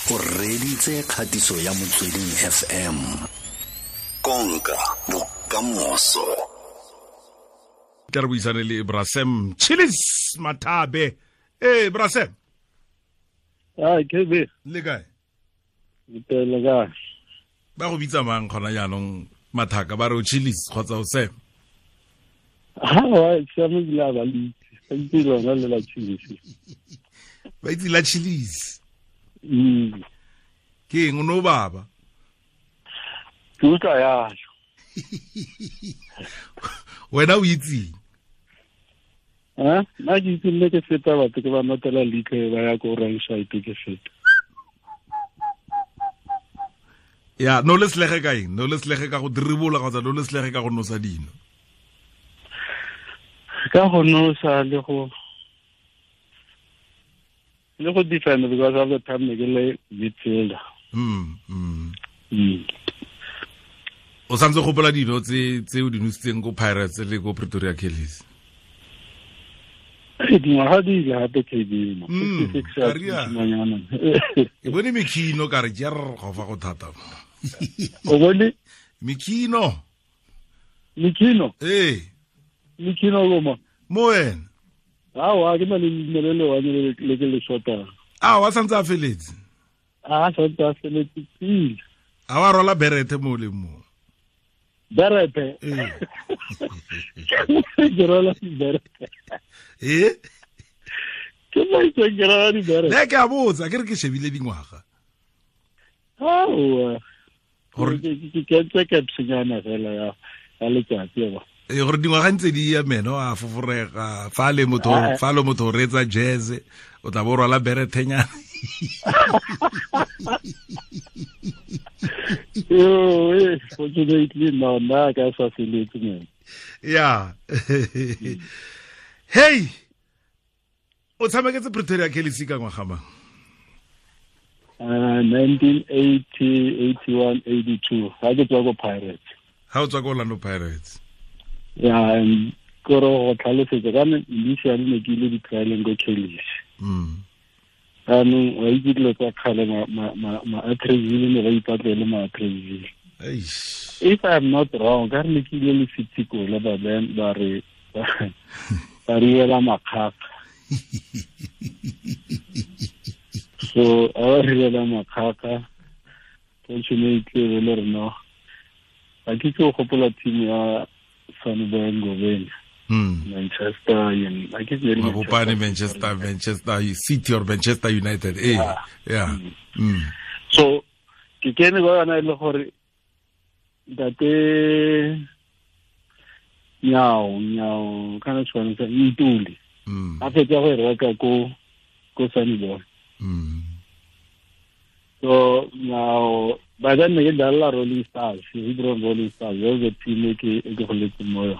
O reditse kgatiso ya Motsweding FM. Konka bokamoso. Tla re buisane le Brasem Chillis Mathabe. Eh Brasem. Ah, KB. Le kae? Le kae? Ba go bitsa mang gona jaanong mathaka ba re o Chillis kgotsa o Sam? Ha wa Sam ebile a ba le itse. Ba itse lona le la Chillis. Ba itse la Chillis. Ke eng o no baba? Ke utlwa yalo. Wena o itseng? Ha? Nna ke itse nne ke feta batho ke ba notela leitlho ba ya ko wrong side ke feta. Ya, no le selege ka eng? No le selege ka go diribola kgotsa no le selege ka go nosa dino? Ka go nosa le go defend because of the time ke le midfielder. O santse gopola dino tse o di nositseng ko Pirates le ko Pretoria Callies? Dingwaga di ile gape KB mo. Ke bone mekhino ka re jer go fa go thata. O bone mekhino? Mekhino? Eh. Mekhino go mo. Mo wena? Awa, ke na le leina le le one le ke le shotang. A wa santse a feletse? A santse a feletse pele. A wa rola berete mo le mo? Berete? Eh. Ke rola berete. Eh? Ke mo itse ke rola di berete. Ne ke a botsa, ke re ke shebile dingwaga. Aowa. Gore ke kentse capsnyana fela ya letsatsi ba. E gore dingwaga ntse di ya meno a foforega fa le motho fa le motho retsa jazz o tla bo rwala berethenyana. Yo, fortunately no, nna ka sa feletse man. Yeah. Hey, o tshameketse Pretoria Callies ka ngwaga mang? 1980, 81, 82. Ha ke tswa ko Pirates. Ha o tswa ko Orlando Pirates. Yeah, and kore go tlhalosetsa ka initially ne ke ile di-trialeng ko Callies. Jaanong wa itse dilo tsa kgale ma-Atteridgeville ne ba ipatlele ma-Atteridgeville. If I'm not wrong, ka re ne ke ile le City Kola ba then ba re ba re ela makgakga. So a ba re ela makgakga, fortunately le re no. Ga ke itse go gopola team ya Sanibona Ngobeni. Manchester Manchester, Manchester City or Manchester United. Eh, yeah. So ke kene ba yona ile gore ntate Nyao kana tshwana sa Ntuli. A fetsa go reka ko Sanibona. So now by then ne ke dlala Rolling Stars, Hebron Rolling Stars, that was the team e ke goletse mo yone.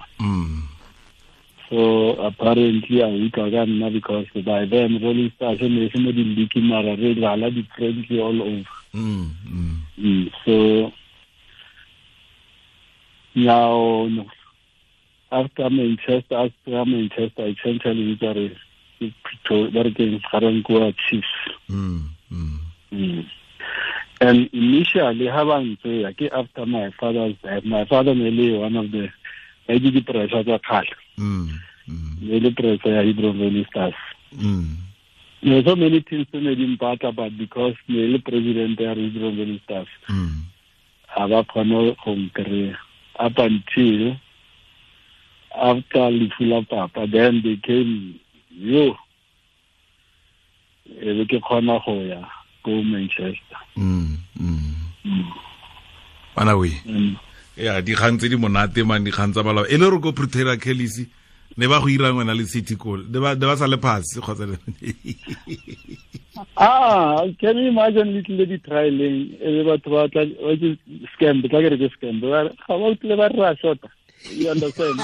So apparently I utlwa ka nna because by then Rolling Stars ne e se mo di-league mara re dlala di-friendly all over. So now after Manchester essentially ba re ke Garankuwa Chiefs. And initially ha ba ntse ke after my father's death, my father ne le one of the di pressure tsa kgale. Ne le pressure ya Hebron Rolling Stars. There so many things ne di mpatla, but because ne le president ya Hebron Rolling Stars, ha ba kgone go nkry-a up until after lefu la papa, then they came yo e be ke kgona go ya ko Manchester. Bana we. Ya dikgang tse di monate man, dikgang tsa balao. E le re ko Pretoria Callies ne ba go irang wena le City Goal. Ne ba sa le pass kgotsa. Ah, can you imagine little di trialing e le batho ba tla ba ke scam, tla ke re ke scam. Ba ga ba tle ba re shota. You understand?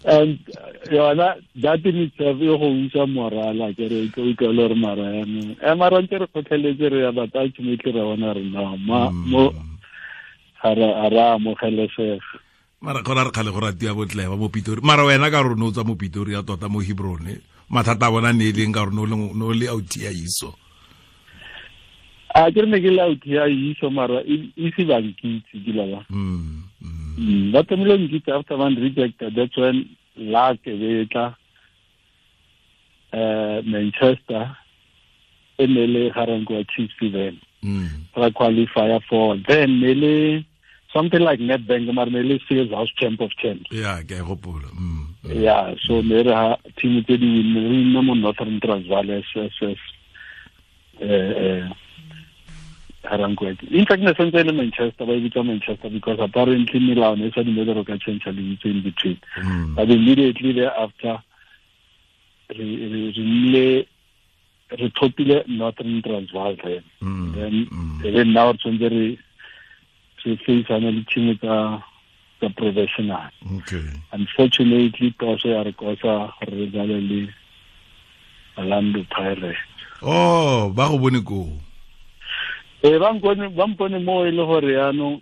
And yona that in itself e go usa morala ke re ke utlwa le re mara yanong e mara ntse re kgotlheletse re ya batho ultimately re bona re no mo ga re amogelesega. Mara gona re kgale go ratia botle ba mo Pitori. Mara wena ka rona o tswa mo Pitori ya tota mo Hebron. mathata a bona ne e leng ka gore ne o le auti ya iso. A ke ne ke le auti ya iso mara ise ba nkitse ke la ba. Ba tlamehile nkitse after one rejected, that's when luck e tla Manchester e ne le Garankuwa Chiefs then. Ra qualifier for then ne le something like Nedbank mara ne le Sears House Champ of Champs. Yeah, ke a gopola. Yeah, so ne re ha team tse di win re nna mo Northern Transvaal SS Garankuwa. In fact ne sentse le Manchester ba e bitsa Manchester because apparently melao ne sa dumele re ka change lebitso in between. But immediately thereafter re thopile Northern Transvaal then. Then now tshwanetse re faceana le team tsa professional. Okay. Unfortunately toso ya re kosa gore re dlale le Orlando Pirates. Oh, ba go bone ko. Ba mpone mo e le gore yaanong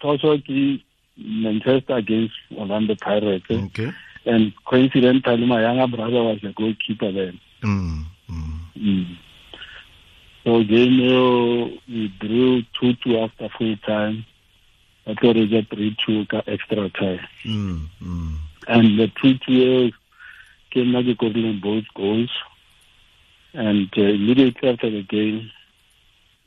toso ke Manchester against Orlando Pirates. Okay. And coincidentally my younger brother was the goalkeeper then. So game we drew 2-2 after full time. I thought it was 3-2 extra time. And the 2-2 came back in both goals. And immediately after the game,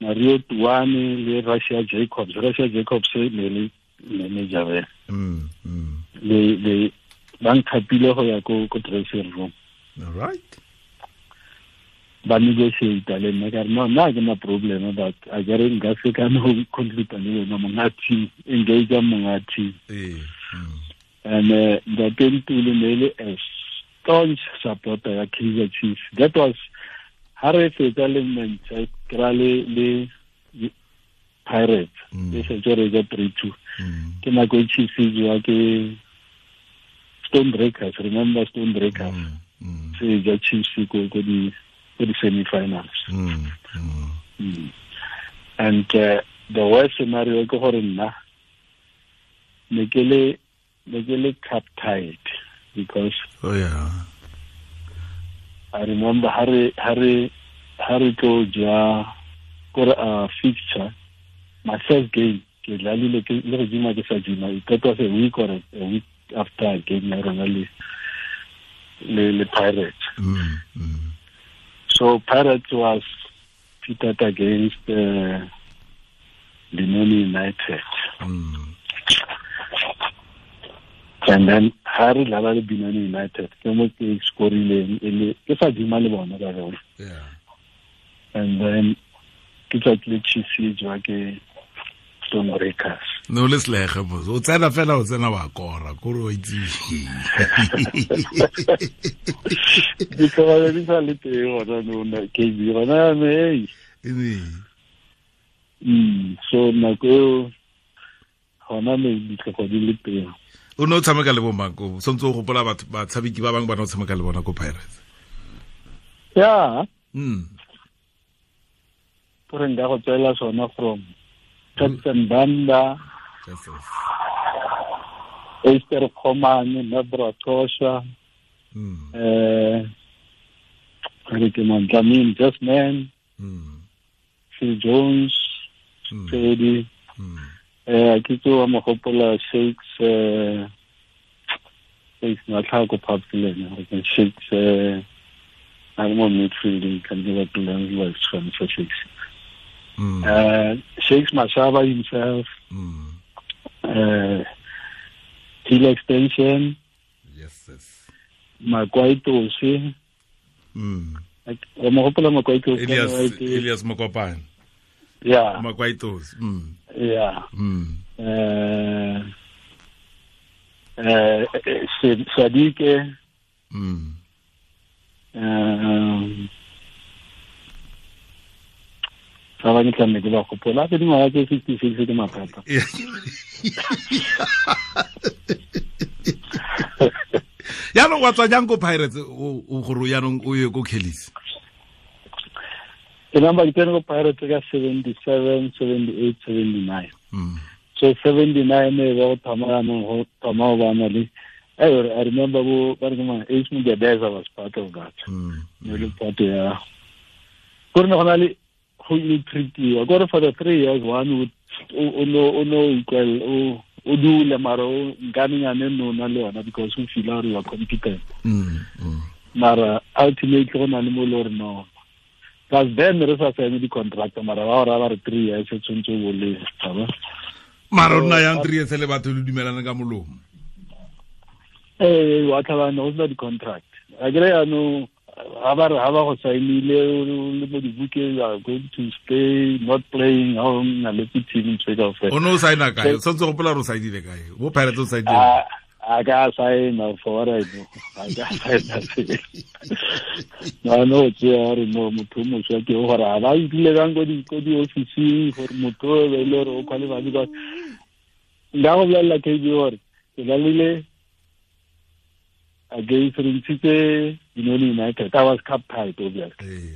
Mario Tuani le Russia Jacobs. Russia Jacobs ne manager. Le ba nthapile go ya ko dressing room. All right. Ba negotiate le nna ka re no nna ke na problem but a ke re nka se ka no conclude le wena monga team, engage monga team. And the Ntuli ne le a staunch supporter ya Kaizer Chiefs. That was ha re fetsa le Manchester le Pirates. E setse re ja 3-2. Ke nako e Chiefs e jewa ke Stonebreakers, remember Stonebreakers? Se ja Chiefs ko di semi-finals. And the worst scenario ke gore nna ne ke le cup tied because oh yeah, I remember ha re tlo ja kore a fixture, my first game ke dlalile ke le go jima ke sa jima, it was a week or a week after game ya rona le Pirates. So Pirates was pitted against Benoni United. And then Harry dlala le Benoni United ke mo ke scorileng e le ke sa jima le bona ka rona. Yeah. And then ke tsatsi le Chiefs e jwa ke Stonebreakers. No le slege mos. O tsena fela o tsena wa kora, kore o itse. Di ka di sa le teng gona no na ke di gona me. So nako eo gona me ditlhogo di le teng. O ne o tshameka le bo mang ko? Sontse o gopola batho batshameki ba bangwe ba ne o tshameka le bona ko Pirates. Yeah. Gore nka go tswela sona from Captain Banda, Esther Khomane, Nabra Tosha, Dlamini Jasmine, Phil Jones, Freddy, ke tsoa mogopola Shakes, Shakes Matlhako Papilene, Shakes, I'm on midfield, can give up the for Shakes. Shakes Mashaba himself, Hill Extension, yes, yes. Makwaitosi, Elias Mokopane, yeah, Makwaitosi, yeah, Sadike, ba ba ke tlamme ke ba gopola ke dingwaga tse 66 ke mathata. Yaanong wa tswa jang ko Pirates o gore yaanong o ye ko Kelly's? Ke namba ke tsene ko Pirates ka 77, 78, 79. So 79 e ba go thoma yaanong go thoma go bana le I remember Ace Mugedeza was part of that. Ne part ya gore ne gona le go ile treatiwa gore for the 3 years one would o no equal o dule mara o nkanenyane no na le yona because o feel gore you are competent. Mara ultimately go na le mo le gore no plus then re sa sign di contract mara ba ora ba re 3 years e tshwanetse o le tshaba mara rona yang 3 years le batho le dumelana ka molomo wa tlhabana go sena di contract a kere yaanong ha ba go sainile le mo dibukeng you are going to stay not playing ha o na le team ntse ka o no saina kae o tshwanetse go gopola gore o sainile kae bo Pirates o sainile a ka saina for what I know a ka saina no tse a re no motho o moswa ke gore a ba itlile kang ko di-officing gore motho o be le gore o qualify because nka go bolelela KB gore ke lalile against Rentshitse Benoni United. I was cup tied obviously.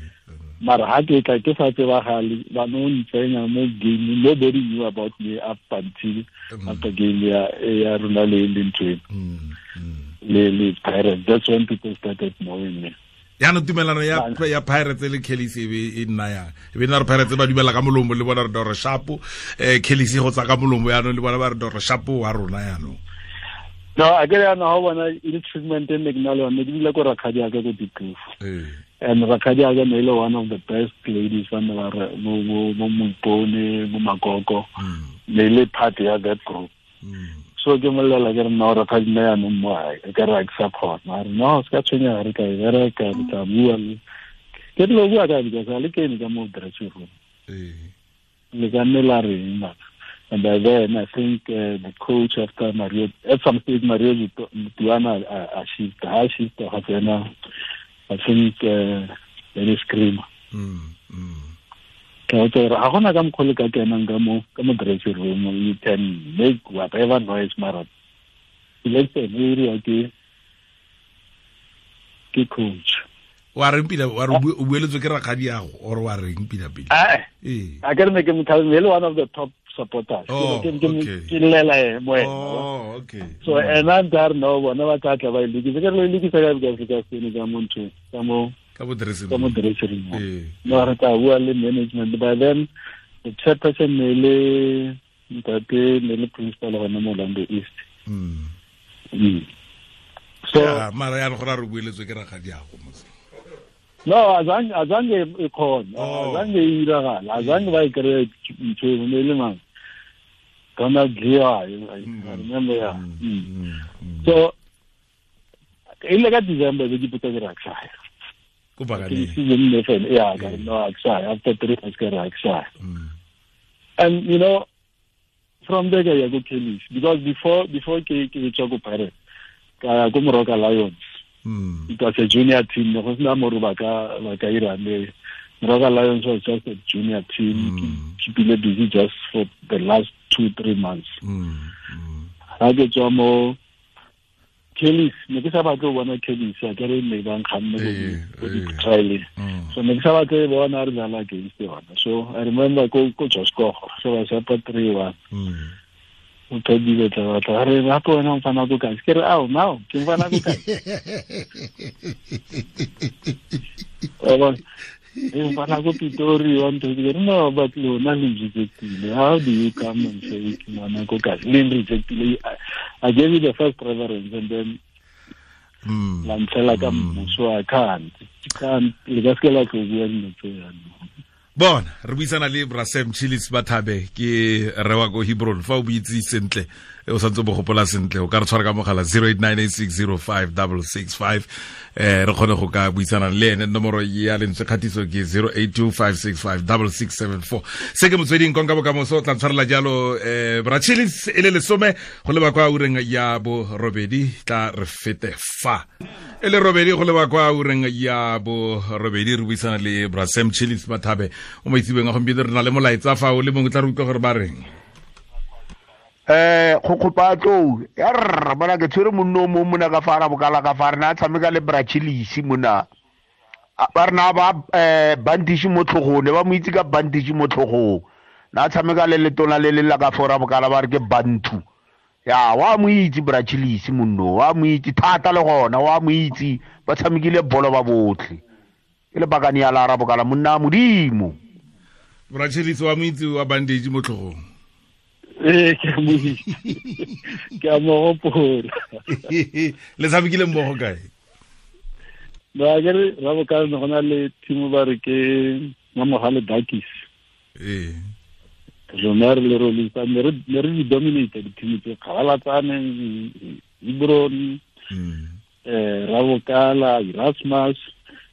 Mara ha ke tla ke sa tsebagale ba no ntsenya mo game nobody knew about me up until after game ya rona le ntwe le Pirates. That's when people started knowing me. Yaanong tumelano ya Pirates le Kellis e be e nna yang e be nna re Pirates ba dumela ka molomo le bona re dore shapo Kellis go tsa ka molomo yaanong le bona ba re dore shapo wa rona yaanong. No, I get no how bona e treatment e ne ke na le yone ke dula ko rakgadi ya ka ko Dikloof. And rakgadi ya ka ne le one of the best ladies ba ne ba re mo Moipone mo Makoko ne le part ya that group. So ke molela ke re nna rakgadi nna yaanong mo hae ke re ke sa kgona a re no se ka tshwenyega re tla e bereka re tla bua le ke dilo bua ka because a le kene ka mo dressing room le ka nne la reng mara. And by then, I think the coach after Mario, at some stage, Mario Tuana shift, I shift, I think, there is scream. You can make whatever noise, Mara. Let's say, coach. Wa reng pila wa re o bueletswe ke rakgadi yago or wa reng pila pila? I can make him tell me one of the top supporters. Oh, okay. Oh, okay. So and I'm there no one ba tla tla ba ilukisa ke re ilukisa ka because ka sene ka mo ntho ka mo dressing room. No re tla bua le management by then the chairperson ne le ntate ne le principal gona mo Orlando East. So mara ya re gore re bueletswe ke rakgadi yago mose. No, azange e khona, azange e iragala, azange ba e kry ntho e ne le mang. Donald Lear, I remember, yeah. So, in like December, we put a rakshaya. Yeah, no, rakshaya. After 3 months, rakshaya. And you know, from there, I go Kellis because before ke tswa ko Pirates, ka go Moroka Lions. It was a junior team. Go sena mo ba ka ira le Moroka Lions was just a junior team. Keeping busy just for the last 2-3 months. Ha ke tswa mo Kellis, ne ke sa batle go bona Kellis, a ke re ne ba nkganne go di trial. So ne ke sa batle go bona re dlala against yona. So I remember go Josko, so ba sa 3-1. O thodile tla batla re gape wena o mfana ko kae ke re ao nao ke mfana ko kae mfana ko Pitori wa ntho ke re no but lona le rejectile. How do you come and say ke ngwana ko kae le rejectile? I gave you the first preference and then la ntlhela ka mmuso. I can't le ka se la tlo bua dilo tse jaanong. Bona re buisana le Bra Sam Chillis Mathabe ke rewa ko Hebron fa o buitse sentle o santse bo gopola sentle o ka re tshwara ka mogala 0898605665 re kgone go ka buisana le ene. Nomoro ya lentswe kgatiso ke 0825656674. Se ke motsweding konka bokamoso tla tshwarela jalo Bra Chillis e le lesome go leba kwa ureng ya borobedi tla re fete fa e le robedi go leba kwa ureng ya borobedi re buisana le Bra Sam Chillis Mathabe o mo itsebeng a gompieno re na le molaetsa fa o le mongwe tla re utlwa gore ba reng. Go kopa tlou ya rra bona ke tshwere monno o mongwe mona ka fa ra bokala ka fa re na tshameka le Bra Chillis mona ba re na ba bandage mo tlhogong ne ba mo itse ka bandage mo tlhogong na tshameka le letona le le la ka fora bokala ba re ke bantu Ya wa mo itse Brachilisi monno, wa mo itse thata le gona, wa mo itse ba tshamekile bolo ba botlhe. Ke le bakane ya la Rabokala monna modimo. Brachilisi wa mo itse wa bandage mo tlhogong. Ee, ke mo itse. Ke a mo gopola. Le tshamekile mmogo kae? Ba ke re Rabokala ne go na le team ba re ke Mamogale Bakis. Ee. Rona re le Rolling Stars ne re di dominate di-team tse Kgabalatsane, Hebron, Rabokala, Erasmus,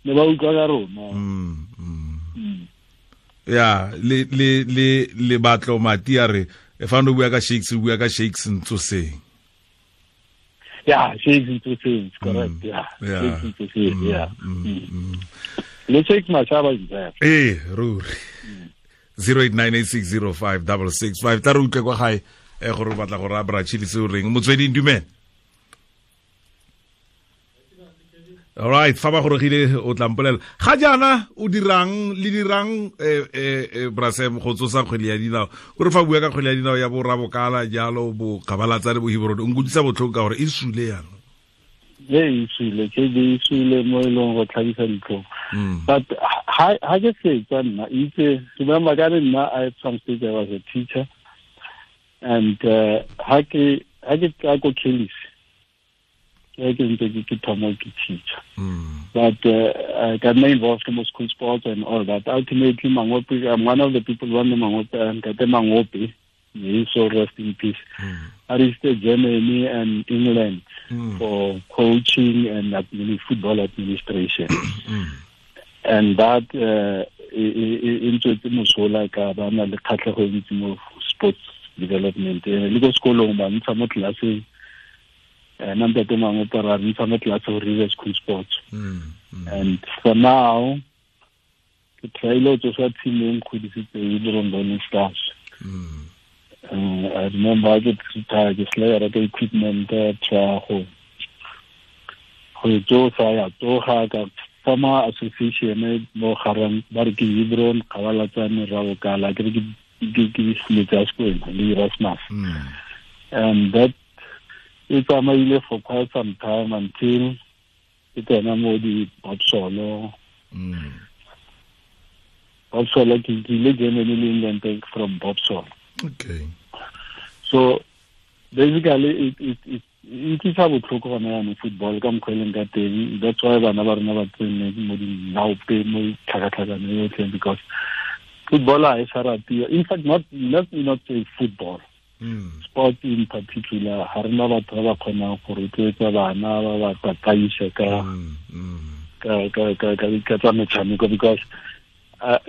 ne ba utlwa ka rona. Ya, le le le le batlo mati a re fa no bua ka Shakes, o bua ka Shakes Ntsoseng. Yeah, Shakes Ntsoseng, correct. Yeah. Shakes Ntsoseng, yeah. Le Shakes Mashaba is there. Eh, ruri. 0898605665 tla re utlwe kwa gae gore o batla go raya Brachilisi o reng. Motsweding, dumela. All right, fa ba gorogile o tla mpolela. Ga jaana o dirang le dirang Brasem go tsosa kgwele ya dinao. O re fa bua ka kgwele ya dinao ya bo Rabokala jalo bo Kgabalatsane bo Hebron, o nkutlwisa botlhoko ka gore e sule yana. E sule, ke e sule mo e leng go tlhabisa ditlhong. But ha ke fetsa nna, itse remember ka nna I at some stage I was a teacher, and ha ke tla ko Kelly's, ke ntse ke thoma ke teacher. But I got me involved in school sports and all that. Ultimately, Mangope, I'm one of the people who won the Mangope, and Kate Mangope, may he so rest in peace. I reached Germany and England for coaching and football administration. And that into mosola ka ba na le kgatlhego e ntsi mo sports development. Le ko sekolong ba ntsha mo tlelaseng, nna ntate mangwe ra ntsha mo tlelase go re school sports. And for now, ke tryile go tsosa team e nkgodisitseng e le Rolling Stars. I remember I get retired, ke sele reka equipment, try go tsosa ya tsoga ka former association mo garang ba re ke Hebron, Kgabalatsane, Rabokala, ke re ke tsa sekolo le Erasmus. And that e tsamaile for quite some time until ke tsena mo di Bobsolo. Bobsolo ke ile Germany le England from Bobsolo. Okay. So basically it utlwisa botlhoko gona jaanong football ka mokgwa e leng ka teng. That's why bana ba rona ba tsene mo dinaope mo tlhakatlhakano yotlhe, because football ha e sa ratiwa. In fact, not let me not say football. Sport in particular, ha rena batho ba ba kgonang go rotloetsa bana ba ba tataisa ka ka tsa metshameko, because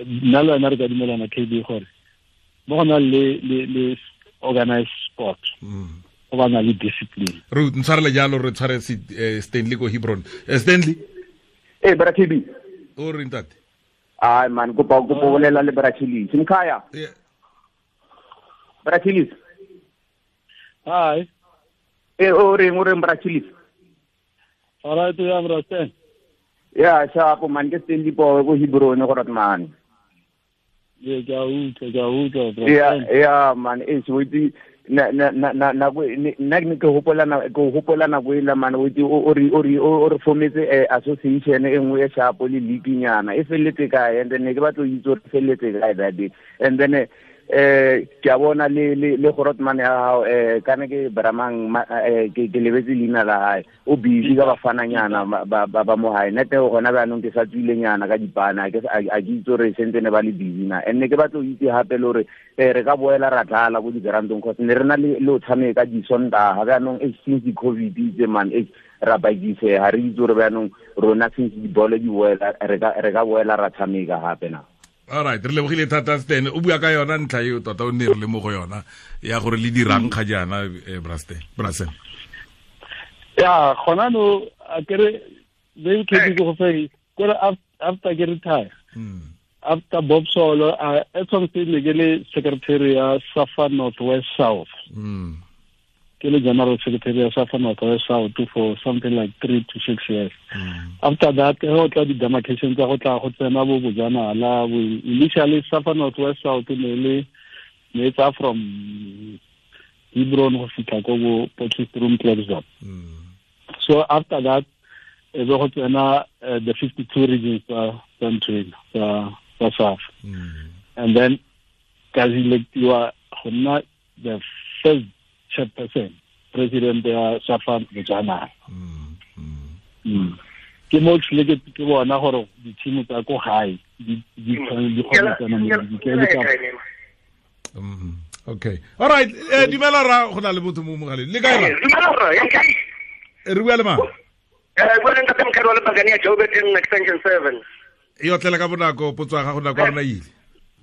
nna le wena re ka dumelana KB gore mo go na le organized sport go ba na le discipline. Re ntshwarele jalo, re tshware Stanley ko Hebron. Stanley? Eh, bra KB. O re ntate? Ai man, kopa go bolela le Brachilisi. Mkhaya. Yeah. Brachilisi. Hi. Eh, o reng Brachilisi? All right, ya bra Stan. Yeah, sharp man, ke Stanley po ko Hebron go rat man. Yeah, ke a utlwa bra. Yeah, man, e so itse na nna ke hopola nako e la man o itse o re formetse association e nngwe e sharp le league nyana e felletse kae, and then ke batla go itse gore felletse kae that day, and then ke a bona le gorotman ya hao kana ke Bramang ke lebetse leina la hae, o busy ka bafananyana ba mo hae nete gona jaanong ke sa tswile nyana ka dipana ke a ke itse gore sentse ne ba le busy na, and ne ke batla go itse hape le gore re ka boela ra dlala ko digrandong cause ne re na le o tshameka disontaga jaanong since COVID itse man ra bakise ha re itse gore jaanong rona since dibolo di boela re ka boela ra tshameka hape na. All right, re lebogile thata Stan. O bua ka yona ntlha eo tota o ne re le mo go yona ya gore le dirang ga jaana Brasem. Ya, gona no a kere they ke go fe kore after ke retire. After Bob Solo, at some stage ke le secretary ya Safa Northwest South. Ke le general secretary ya Safa Northwest South for something like 3 to 6 years. After that, go tla di-demarcation tsa go tla go tsena bo bojanala. Initially, Safa Northwest South ne le ne tsa from Hebron go fitlha ko bo Potchefstroom Klerksdorp. So after that e be go tsena the 52 regions tsa ntho ena tsa SAFA. And then ka electiwa go nna the first chairperson, president ya SAFA Bojanala. Ke mo tlile ke bona gore di-team tsa ko gae di kgona tsena mo di Okay. All right. Dumela ra go na le botho mo mogaleng. Le kae ra? Dumela ra, ya kae? Re bua le mang? Bua le ntate Mkhadi wa Lepakane ya Joburg Extension 7. E otlela ka bonako potso ya gago nako ya rona ile.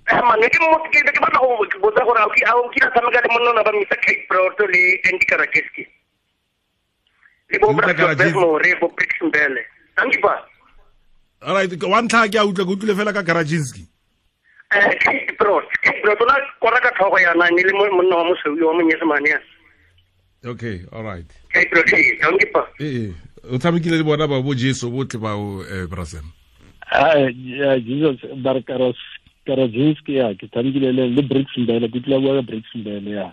Man, ke mo ke batla go botsa gore a o kile tshameka le monna ba Mr. Kate Broto le Andy Karakeski. Le bo Brad bo Brix Mbele. Thank you pa. All right, wa ntlha ke a utlwa ke utlwile fela ka Karaczynski. Kate Brot la kora ka tlhogo yana ne le monna wa mosweu wa monyesemane ya. Okay, all right. Kate Brot, thank you pa. O tshamekile le bona ba bo Jesu botlhe ba o Brasem. Yeah, Jesus Barkaros Karaczynski ya ke tshamekile le Brix Mbele, ke tlile bua ka Brix Mbele ya.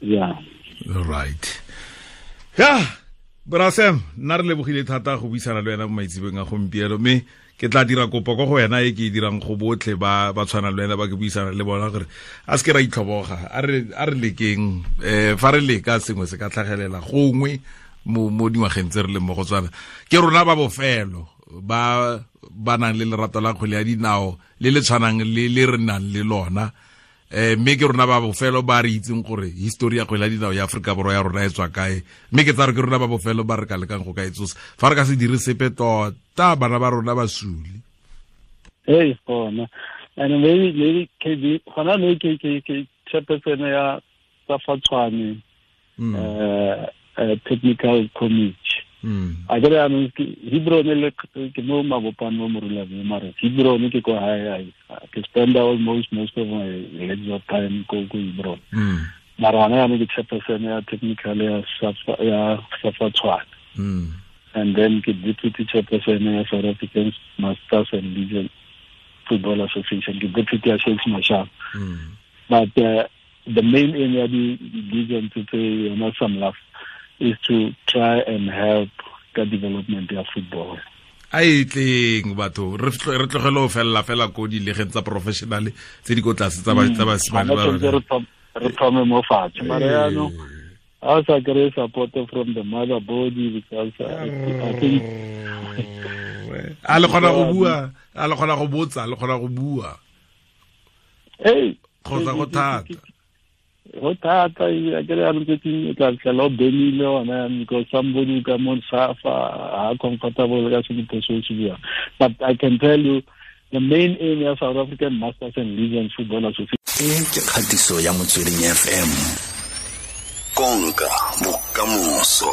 Yeah. All right. Yeah. Brasem, nna re lebogile thata go buisana le wena mo maitsebeng a gompieno, mme ke tla dira kopo ko go wena e ke e dirang go botlhe ba tshwanang le wena ba ke buisana le bona gore a se ke ra itlhoboga, a re lekeng, fa re leka sengwe se ka tlhagelela gongwe mo dingwageng tse re leng mo go tswana. Ke rona ba bofelo ba ba nang le lerato la kgwele ya dinao le le tshwanang le le re nang le lona, mme ke rona ba bofelo ba re itseng gore history ya kgwele ya dinao ya Afrika Borwa ya rona e tswa kae, mme ke tsa re ke rona ba bofelo ba re ka lekang go ka e tsosa. Fa re ka se dire sepe tota bana ba rona ba sule. Hey, gona. And maybe KB gona le ke chairperson ya SAFA Tshwane technical committee. A ke re anong ke Hebron le ke mo Mabopane mo Moruleng mare Hebron ke ko hae, ke spend almost most of my leisure time ko Hebron. Mara hona yanong ke chairperson ya technical ya SAFA Tshwane. And then ke deputy chairperson ya South African Masters and Legion Football Association, ke deputy ya Shakes Mashaba. But the main aim ya di legion tse yona SAMLAF is to try and help the development of football. A e tleng batho re tlogele ho fella fela ko dilegeng tsa professional tse di ko tlase tsa basimane ba re thome mo fatshe. Mara yaanong a sa kry support from the mother body because I think a le kgona go bua, a le kgona go botsa, a le kgona go bua. Hey, kgotsa go thata. Go thata, a ke re anong tse o tla fitlhela o benile ona because somebody ka mo SAFA ha comfortable ka se diphoso se buang. But I can tell you the main aim ya South African Masters and Legion Football Association. E ke kgatiso ya Motsweding FM. Konka bokamoso.